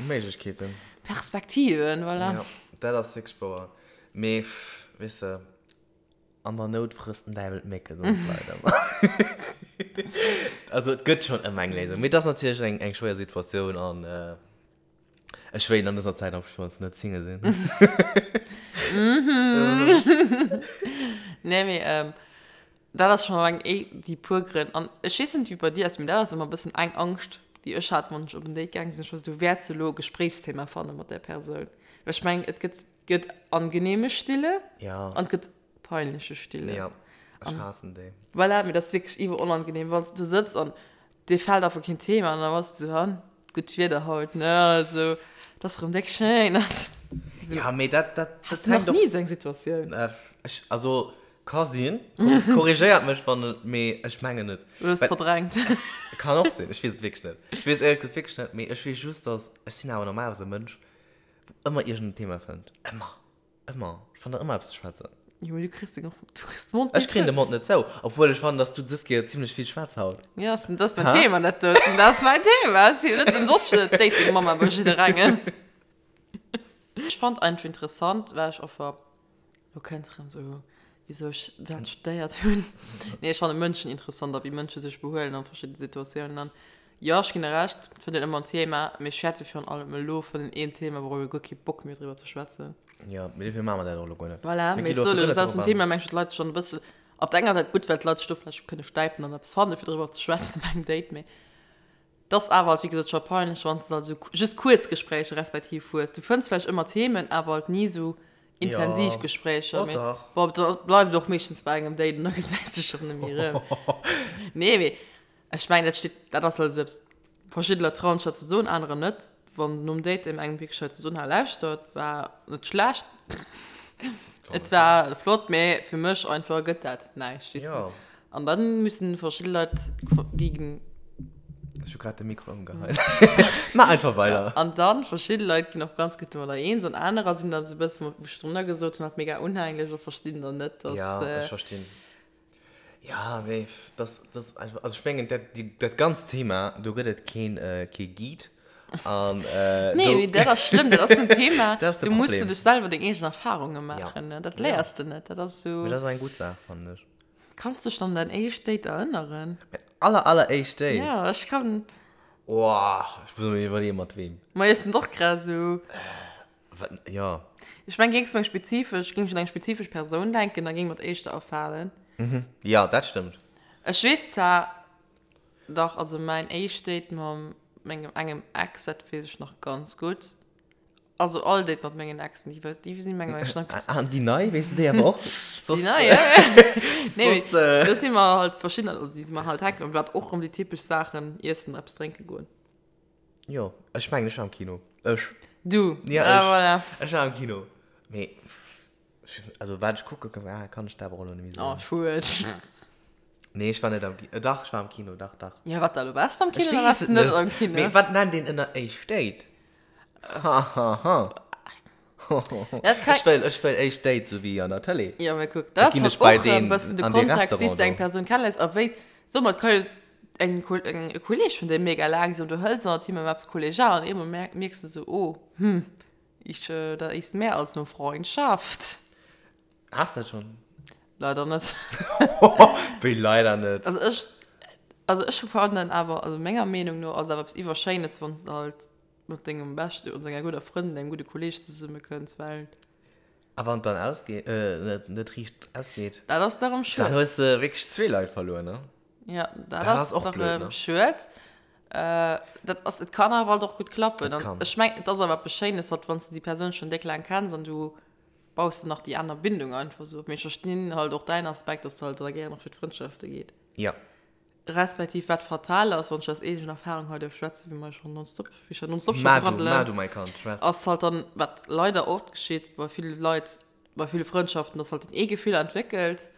Méiglechkeeten. Perspektiven, voilà. Ja, dat ass wierklech wouer. Mee, weess de. An der Nout frësst den Däiwel d'Mécke, soen d'Leit ëmmer. Also et gëtt schonn ëmmer eng Léisung. Mee et ass natierlech eng, eng schwéier Situatioun an ech wéilt an dëser Zäit am schonns net Single sinn. Nee, mee dat ass schonn eng, déi puer Grënn. An ech weess net, wéi et bei dir ass, mee dat ass ëmmer e bëssen eng Angscht, déi ech hat, wann ech op en Date gaange sinn. Ech war esou, du wäerts elo e Gespréichsthema fanne mat där Persoun. Well ech mengen, et gëtt Gëtt angenehme Stille ja. an gëtt peinliche Stille. Ja, ech haassen déi. Voilà, mee dat ass wierklech iwwer onangenehm, wann s du sëtz an dir fält einfach keen Thema an da bass du esou, han, gutt Wieder haut, ne, also, et ass erëm déck schéin. Ja, mee dat, dat, dat Has du nach ni esou eng Situatioun? Ech, also, ka sinn, korrigéiert mech, wann et, mee ech mengen net. Oder hues verdrängt? Kann och sinn, ech weess et wierklech net. Ech weess et éierlech gesot wierklech net, mee ech weess just, dass, ech sinn awer normalerweis e Mënsch, Wou ëmmer iergend en Thema fënnt. Ëmmer. Ëmmer. Ech fannen ëmmer eppes ze schwätzen. Jo, mee du kriss den, du kriss de Mond net zou. Ech kréien de Mond net zou. Obwuel ech fannen, dass du dës Kéier zimlech vill schwätz haut. Jo, dat ass mäin Thema, dat doten. Dat ass mäin Thema. Ech sinn jo net ëmsoss d'Dating-Mamma bei jidderengem. Ech fand einfach interessant, well ech einfach Lo kënnt erëm sou, wisou ech dat studéiert hunn. Nee, ech fanne Mënschen interessant a wéi Mënsche sech behuelen an verschidde Situatiounen. An jo, ech ginn der Recht, et fënnt een ëmmer en Thema, mee ech schwätze virun allem elo vun engem Thema, wourop ee guer kee Bock méi huet driwwer ze schwätzen. Jo, mee dofir maache mer dat och elo guer net. Voilà, mee ech soe lo, dat ass en Thema, mengen ech, wou d'Leit sech dann e bësse, op der enger Säit gutt, well d'Leit sech do vläicht kënne stäipen an eppes fanne fir driwwer ze schwätzen bei engem Date, mee 't ass awer halt wéi gesot scho peinlech, wann s de halt esou just kuerz Gespréicher respektiv hues. Du fënns vläicht ëmmer Themen, awer halt ni esou intensiv Ja. Gespréicher. Oh Mee dach. bon, da bleift et och meeschtens bei engem Date an da gesäis de sech och net méi erëm. Nee, mee ech mengen, dat steet, dat ass halt esou eppes, verschidde Leit trauen sech dat ze soen, anerer net. Wann nom Date deem engem wierklech hei ze soen, ha lauschtert, war net schlecht, et war flott, mee fir mech einfach gëtt dat näischt, weess de. An dann müssen verschidde Leit gegen. Ech hu grad de Mikro ëmgeheit. Maach einfach weider. An dann verschidde Leit ginn och ganz gutt domadder eens an anerer sinn dann esou e bëssen, wou ech drunner gesot hunn, halt mega unhänglech a verstinn dann net, dass. Ja, ech verstinn. Ja, mee das, das einfach, also ech mengen, dat, déi, dat ganzt Thema, do gëtt et keen, kee Guide. An, äh, Nee, mee dat ass schlëmm, dat ass en Thema, dat ass de do muss du dech selwer deng eegen Erfarunge maachen, ne? Dat léiers de net, dat ass esou. Mee dat ass eng gutt Saach, fannen ech. Kanns dech an däin éischt Date erënneren? Mäin aller, aller éischt Date? Ja, ech kann. Woah, ech muss mer iwwerleeën, mat weem. Ma ech sinn och grad esou. Wat, jo. Ech meng, géings du eng spezifesch, géing ech un eng spezifesch Persoun denken, da géing mer d'éischter afalen. Mhm, jo, dat stëmmt. Ech weess zwar, dach, also mäin éischt Date mam mengem engem Ex, dat weess ech nach ganz gutt. Also all Date mat mengen Exen, déi, déi sinn mengen ech nach. An déi nei, weess de déi awer och? Déi nei, ja. Nee, soss, äh... do si mer halt verschidden, also déi si mer halt hänken, wat och rëm déi typesch Saachen, iessen, eppes drénke goen. Jo, ech mengen, ech war am Kino. Ech. Du? Ja, ech. Ah, voilà. Ech war am Kino. Mee, also wat ech kucke war, kann ech der awer och elo net méi soen. Oh, schued. Nee, ech war net am Kino. Dach, ech war am Kino, dach, dach. Ja, wat da elo? Waars de am Kino oder waars de net am Kino? Mee wat nennt een ënner éischt Date? Ha, ha, ha. Ech wëll, ech wëll éischt Date, sou wéi an der Tëlee. Ja, mä kuck, dat ass halt och e bëssen de Kontext, wéi s de eng Persoun kenneléiers a wéi, soe mer, et ka jo eng, eng, e Kolleeg vun dir mega laang sinn an du hëls ënnert him eppes kollegial an eemol mierks de sou, oh, hm, ich, da ist mehr als nur Freundschaft. Has de dat schonn? Leider net. Wéi leider net? Also ech, also ech fannen awer, also menger Meenung no ass et awer eppes iwwerschéines, wann s de halt mat dengem beschte oder denger gudder Frëndin, dengem gudde Kolleeg zesummekënns, well. A wann et dann ausgeet, net, net riicht ausgeet? Dat ass da rëm schued. Dann hues de wierklech zwee Leit verluer, ne? Ja, dat, dat ass och blöd, ne? Schued. Dat ass, et kann awer halt och gutt klappen. An ech mengen, et ass awer eppes Schéines, halt wann s de déi Persoun schonn déck laang kenns an du baus de nach déi aner Bindung einfach esou op. Mee ech verstinn halt och däin Aspekt, dass de halt da gären och fir d'Frëndschafte geet. Jo. Respektiv wat fatal ass, wann ech aus eegener Erfahrung hei duerf schwätzen, wéi mer jo schonn nonstop, wéi ech jo nonstop scho Maach du, braddelen, maach du, mäi Kand, schwätz. ass halt dann, wat leider oft geschitt bei ville Leit, bei ville Frëndschaften, dass halt den ee Gefiller entwéckelt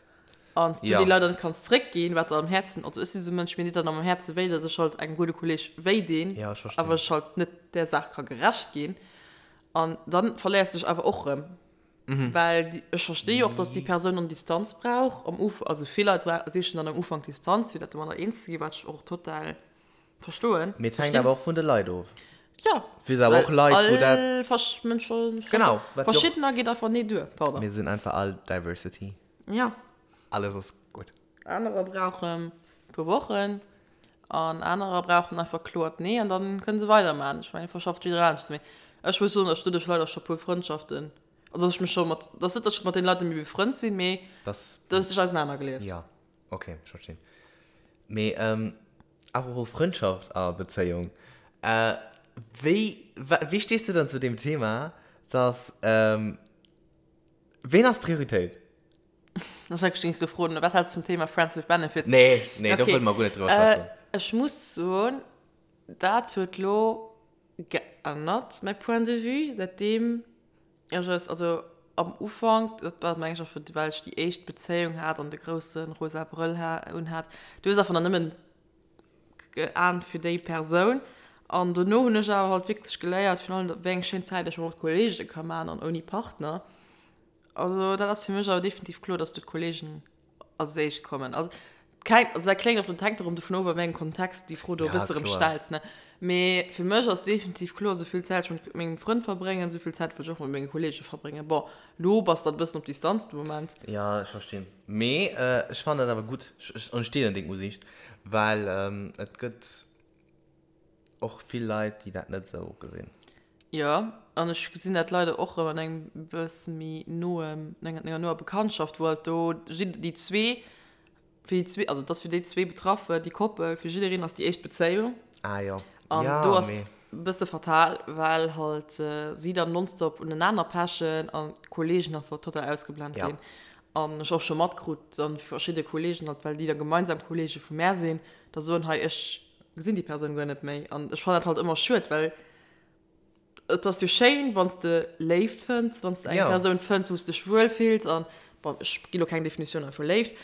an du Ja. déi leider net kanns zréckginn, wat der am Häerzen, also ech si sou e Mënsch, mir deet dann am Häerze wéi, dass ech halt engem gudde Kolleg wéi dinn, Ja, ech verstinn. awer ech halt net där Saach ka gerecht ginn an dann verléiers de dech awer och rëm. Well déi, ech versti jo och, dass déi Persoun dann Distanz brauch am Uf, also vill Leit sichen dann am Ufank Distanz, fir dat domadder eens ze ginn, wat ech och total verstoen. Mee et hänkt awer och vun de Leit of. Jo, Fir awer och well Leit, wou dat. all versch Mënsche, Genau, wat jo och. verschiddener geet einfach nee duer, pardon. Mir sinn einfach all Diversity. Jo. Alles ass gutt. Anerer brauchen e puer Wochen an anerer brauchen einfach kloert Nee an dann kënne se weidermaachen. Ech mengen, verschafft jiddereen aneschters. Mee ech muss soen, datt ech doduerch leider scho puer Frëndschaften, also datt ech mech scho mat, et ass net, datt ech mat deene Leit net méi befrënnt sinn, mee Dass. do hues dech ausenanergelieft. Jo, ok, ech verstinn. Mee apropos Frëndschaft a Bezéiung, wéi, wéi stees du dann zu deem Thema, datt, ween ass Prioritéit? Ech hat gings du froen, wat hältst du vum Thema Friends with Benefits? Nee, nee, do wëlle mer guer net driwwer schwätzen. Ech muss soen, dat huet lo geännert, mäi Point de vue, säitdeem ech es, also am Ufank, dat war meng ech och, well ech déi éischt Bezéiung hat an de grousse rosa Brëll unhat, du hues einfach nach nëmmen geahnt fir déi Persoun. An dono hunn ech awer halt wierklech geléiert, virun allem wéi eng schéin Zäit ech mat Kollege ka maachen an ouni Partner. Also dat ass fir mech awer definitiv kloer, dass do d'Kollegen als éischt kommen. Also keng, also dat kléngt och, dat hänkt erëm dovun of, a wéi engem Kontext déi Fro do e Ja, bësse erëm kloer. stells, ne. Mee fir mech ass definitiv kloer, esou vill Zäit ech mat mengem Frënd verbréngen, esou vill Zäit wëll ech och mat menge Kollege verbréngen. Bon, lo bass de alt e bëssen op Distanz de Moment. Ja, ech verstinn. Mee ech fannen dat awer gutt. Ech, ech deelen deng Usiicht, well et gëtt. Och vill Leit, déi dat net esou gesinn. Jo, an ech gesinn dat leider och erëm an engem bësse méi noem, an enger noer Bekanntschaft, wou halt do jidde, déi zwee, fir déi zwee, also et ass fir déi zwee Betraffe, déi Koppel, fir jiddereen ass déi éischt Bezéiung. Ah jo. An Ja, do ass mee. et e bësse fatal, well halt si dann nonstop unenaner pechen an d'Kollegen einfach total ausgeblent Ja. ginn. An ech och scho matkrut dann verschidde Kollegen halt, well déi da gemeinsam Kollege vu mär sinn, da soen, hei ech gesinn déi Persoun guer net méi. An ech fannen dat halt ëmmer schued, well et ass jo schéin, wann s de Léift fënns, wann s de eng Ja. Persoun fënns, wou s dech wuel fills an, bon, ech gi lo keng Definitioun hei vu Léift,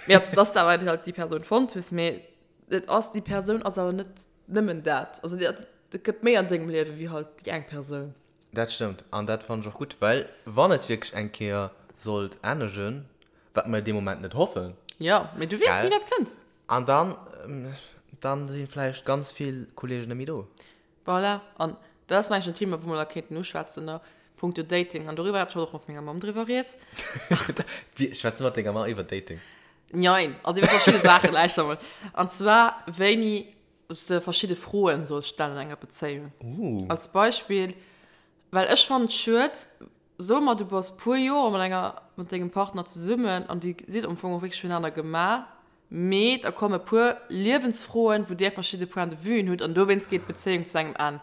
mee dass de awer halt déi Persoun fonnt hues. Mee et ass, déi Persoun ass awer net nëmmen dat. Also et gëtt méi an dengem Liewe wéi halt déi eng Persoun. Dat stëmmt an dat fannen ech och gutt, well wann et wierklech eng Kéier sollt ennegen, wat mer dee Moment net hoffen, Jo, mee du weess ni gell, wat kënnt. an dann, dann si vläicht ganz vill Kollegen net méi do. Voilà, an dat ass mengen ech en Thema, wou mer da kéinten uschwätzen a punkto Dating an doriwwer hat ech haut och mat menger Mamm driwwer rieds. Wie, schwätz du mat denger Mamm iwwer Dating? Njein, also iwwer verschidde Saachen, lauschter mol. An zwar wéini s de verschidde Froen solls stellen an enger Bezéiung. Uh. Als Beispill, well ech fannen et schued, soe mer du bass puer Joer mat enger, mat dengem Partner zesummen an dir sidd am Fong och wierklech fürenaner gemaach, mee da komme puer Liewensfroen, wou dir verschidde Point de vuen hutt an dowéinst geet d'Bezéiung zu engem Enn.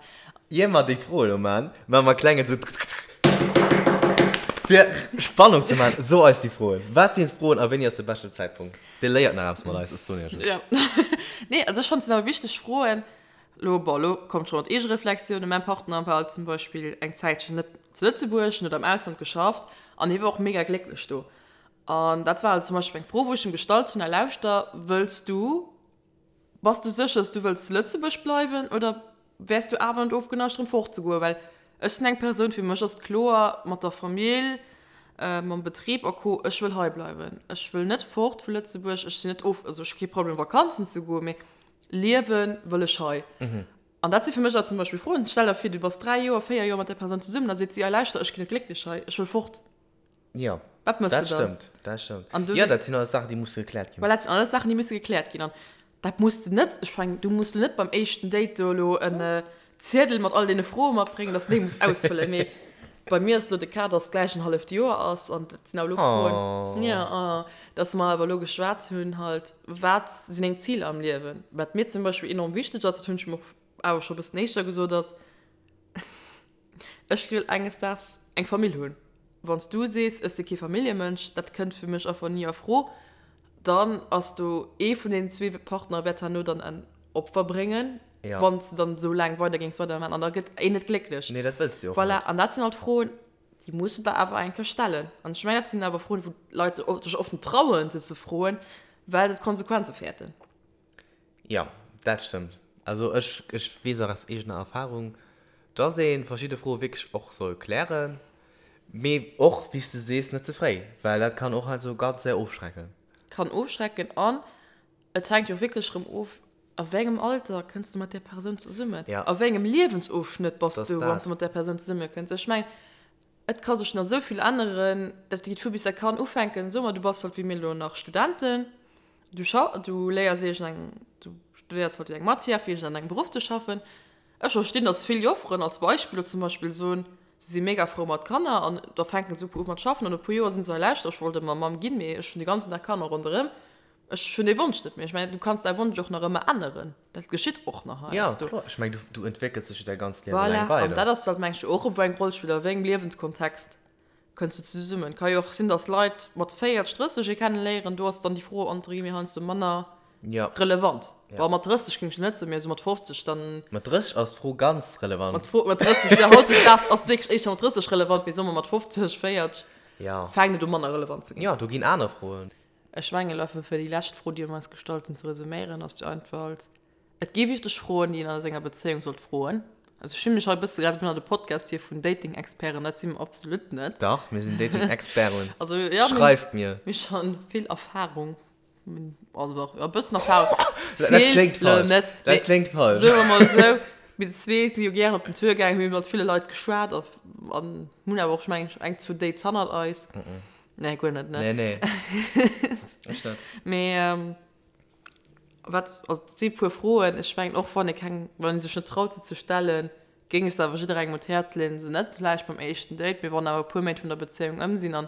Ier mer déi Froen elo maachen, maache mer e klengen sou fir Spannung ze maachen. So eis déi Froen. Wat sinn d'Froen a wéini ass de beschten Zäitpunkt? Dir léiert nach eppes mat eis, ech soen iech et. Ja. Nee, also ech fannen, et sinn awer wichteg Froen. Lo, bon, lo kommt scho mat Eegereflexiounen. Mäin Partner war zum Beispill eng Zäitchen net zu Lëtzebuerg, en huet am Ausland geschafft an hie war och mega glécklech do. An dat war halt zum Beispill eng Fro, wou ech him gestallt hunn, Lauschter, wëlls du Bass du sécher, dass du wëlls zu Lëtzebuerg bleiwen oder wäers du awer net ofgeneigt erëm fortzegoen? Well ech sinn eng Persoun, fir mech ass et kloer, mat der Famill, mam Betrib a Co, ech wëll hei bleiwen. Ech wëll net fort vu Lëtzebuerg. Ech sinn net of, also ech hu kee Problem Vakanzen ze goen, mee liewe wëll ech hei. An dat si fir mech awer zum Beispill Froen. Stell der vir, du bass 3 Joer, 4 Joer mat där Persoun zesummen, da seet si, ei lauschter, ech ginn net glécklech hei, ech wëll fort. Jo, Wat mëss dat de dann? stëmmt, dat stëmmt. An du Jo, dat sinn alles Saachen, déi musse gekläert ginn. Voilà, dat sinn alles Saachen, déi musse gekläert ginn. An dat muss de net, ech mengen, du muss net beim éischten Date do elo en Ziedel mat all deene Froe matbréngen, dass de déi muss ausfëllen. Mee. Bei mir ass elo de Cas, dass gläich en halleft Joer ass an dat sinn awer elo Froen, jo, oh, dass mer awer elo geschwat hunn halt, wat sinn deng Ziler am Liewen? Wat mir zum Beispill enorm wichteg ass, dat hunn ech em och awer scho e bëssen éischter gesot, ass, ech wëll enges Daags eng Famill hunn. Wann s du sees, ech si kee Familljemënsch, dat kënnt fir mech einfach ni a Fro, dann ass do ee vun deenen zwee Partner wäert herno dann en Opfer bréngen, Ja. Wann s de dann esou laang weider géings weider maachen an da gëtt een net glécklech. Nee, dat wëlls de jo och Voilà, net. an dat sinn halt Froen, déi muss de der awer eng Kéier stellen. An ech mengen, dat sinn awer Froen, wou d'Leit sech sech oft net trauen, se ze froen, well se d'Konsequenze fäerten. Jo, dat stëmmt. Also ech, ech weess och aus eegener Erfahrung, dass ee verschidde Froe wierklech och soll klären, mee och, wéi s de sees, net ze fréi, well dat kann och heiansdo ganz séier ofschrecken. Kann ofschrecken an et hänkt jo och wierklech erëm of, A wéi engem Alter kënns du mat där Persoun zesummen? Ja. A wéi engem Liewensofschnëtt bass Das du, wann dat. s du mat där Persoun zesumme kënns? Ech mengen, et ka sech nach esou vill änneren. Dat geet vu bis dat kann ufänken, soe mer, du bass halt wéi mir elo nach Studenten, du scha du léiers iergendeng, du studéiers halt eng Matière fir iergendeng engem Beruff ze schaffen. Ech verstinn, datt vill Jofferen als Beispill elo zum Beispill soen, se si mega frou mat Kanner an da fänke se u mat schaffen an no e puer Joer sinn se, hei lauschter, ech wollt ëmmer Mamm ginn, mee ech hunn de ganzen Dag Kanner ronderëm. Ech hunn dee Wonsch net méi. Ech mengen, du kanns däi Wonsch och nach ëmmer änneren. Dat geschitt och nach heiansdo. Ja, kloer. Ech mengen, du, du entwéckels dech jo däi ganzt Liewe Voilà. laang weider. An dat ass halt, mengen ech, och erëm, wou eng Roll spillt, a wéi engem Liewenskontext kënns du zesummen. Et ka jo och sinn, dass Leit mat 40, 30 ee kenneléieren, do ass dann déi Fro entre guillemets heiansdo manner Ja. relevant. Ja. Bon, mat 30 géing ech net soen, mee esou mat 50 dann. Mat 30 ass d'Fro ganz relevant. Mat Fro, mat 30, ja, hautdesdaags ass et wierklech éischter mat 30 relevant, mee soe mer mat 50, 40 Ja. fänkt et u manner relevant ze ginn. Ja, do ginn aner Froen. Ech mengen elo einfach fir déi lescht Fro, déi un eis gestallt hunn, ze resuméieren, ass déi Antwort, Et gi wichteg Froen, déi een a senger Bezéiung sollt froen. Also ech fillen mech hei e bësse grad ënner de Podcast hier vun Dating-Experten, dat si mer absolut net. Dach, mir sinn Dating-Experten. Also jo, mir Schreift mir! Mir hu schonn vill Erfahrung, also dach, jo e bëssen Erfahrung, Dat vill kléngt elo falsch. net, Dat mee kléngt falsch. soe mer mol esou, mir zwee si jo gären op den Tour gaangen, mir hu mat ville Leit geschwat a an hunn awer och, ech mengen, eng, zwou Dates hannert eis. Nee, guer net, ne? Nee, nee. Ech net. Mee ähm, wat, also et si puer Froen, ech mengen och wann ee keng, wann ee sech net traut se ze stellen, géing ech se awer jidderengem un d'Häerz leeën, se net vläicht beim éischten Date, mee wann awer e puer Méint vun der Bezéiung ëm sinn an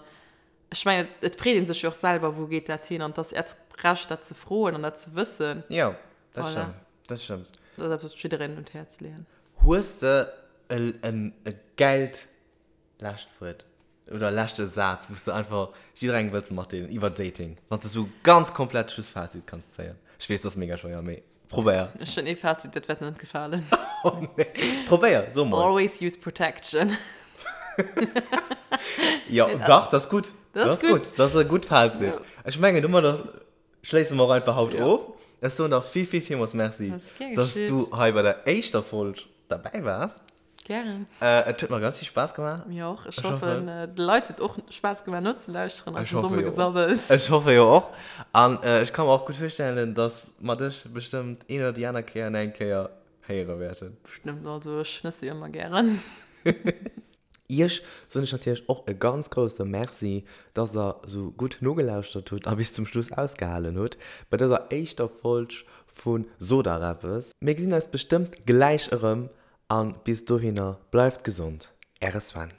ech mengen et freet ee sech jo och selwer, wou geet dat hin an et ass äert Recht dat ze froen an dat ze wëssen. Jo, dat Voilà. stëmmt, dat stëmmt. Dat ass eppes wat ech jidderengem un d'Häerz leeën. Hues de e, e gäilt lescht Wuert oder leschte Saz, wou s de einfach jidderengem wëlls matdeelen iwwer Dating, wann s de sou ganz komplett Schlussfazit kanns zéien? Ech weess, dat ass mega schwéier, mee probéier. Ech hunn ee Fazit, dat wäert der net gefalen. Oh nee. Probéier, so mol. Always use protection. Jo, dach, dat ass gutt. Dat ass gutt. Dat ass e gutt Fazit. Ja. Ech mengen, domadder schléisse mer och einfach haut Ja. of. Ech soen der vill, vill, villmools Merci, Dat ass gär dass geschitt. du hei bei der éischter Folg derbäi waars. Gären. Et huet mer ganz vill Spaass gemaach. Mir och. Ech Ech hoffen, hoffen, de Leit huet och Spaass gemaach nozelauschteren, Ech eisem hoffe domme jo och. Gesabbels. Ech hoffe jo och. An ech ka mer och gutt virstellen, dass mer dech bestëmmt een oder déi aner Kéier nach eng Kéier héiere wäerten. Bestëmmt. Also ech schnësse jo ëmmer gären. Iech soen ech natierlech och e ganz grousse Merci, dass der sou gutt nogelauschtert hutt a bis zum Schluss ausgehalen hutt bei dëser éischter Folg vu Sot dach eppes. Mir gesinn eis bestëmmt gläich erëm An bis dohinner bleift gesond, Äre Sven.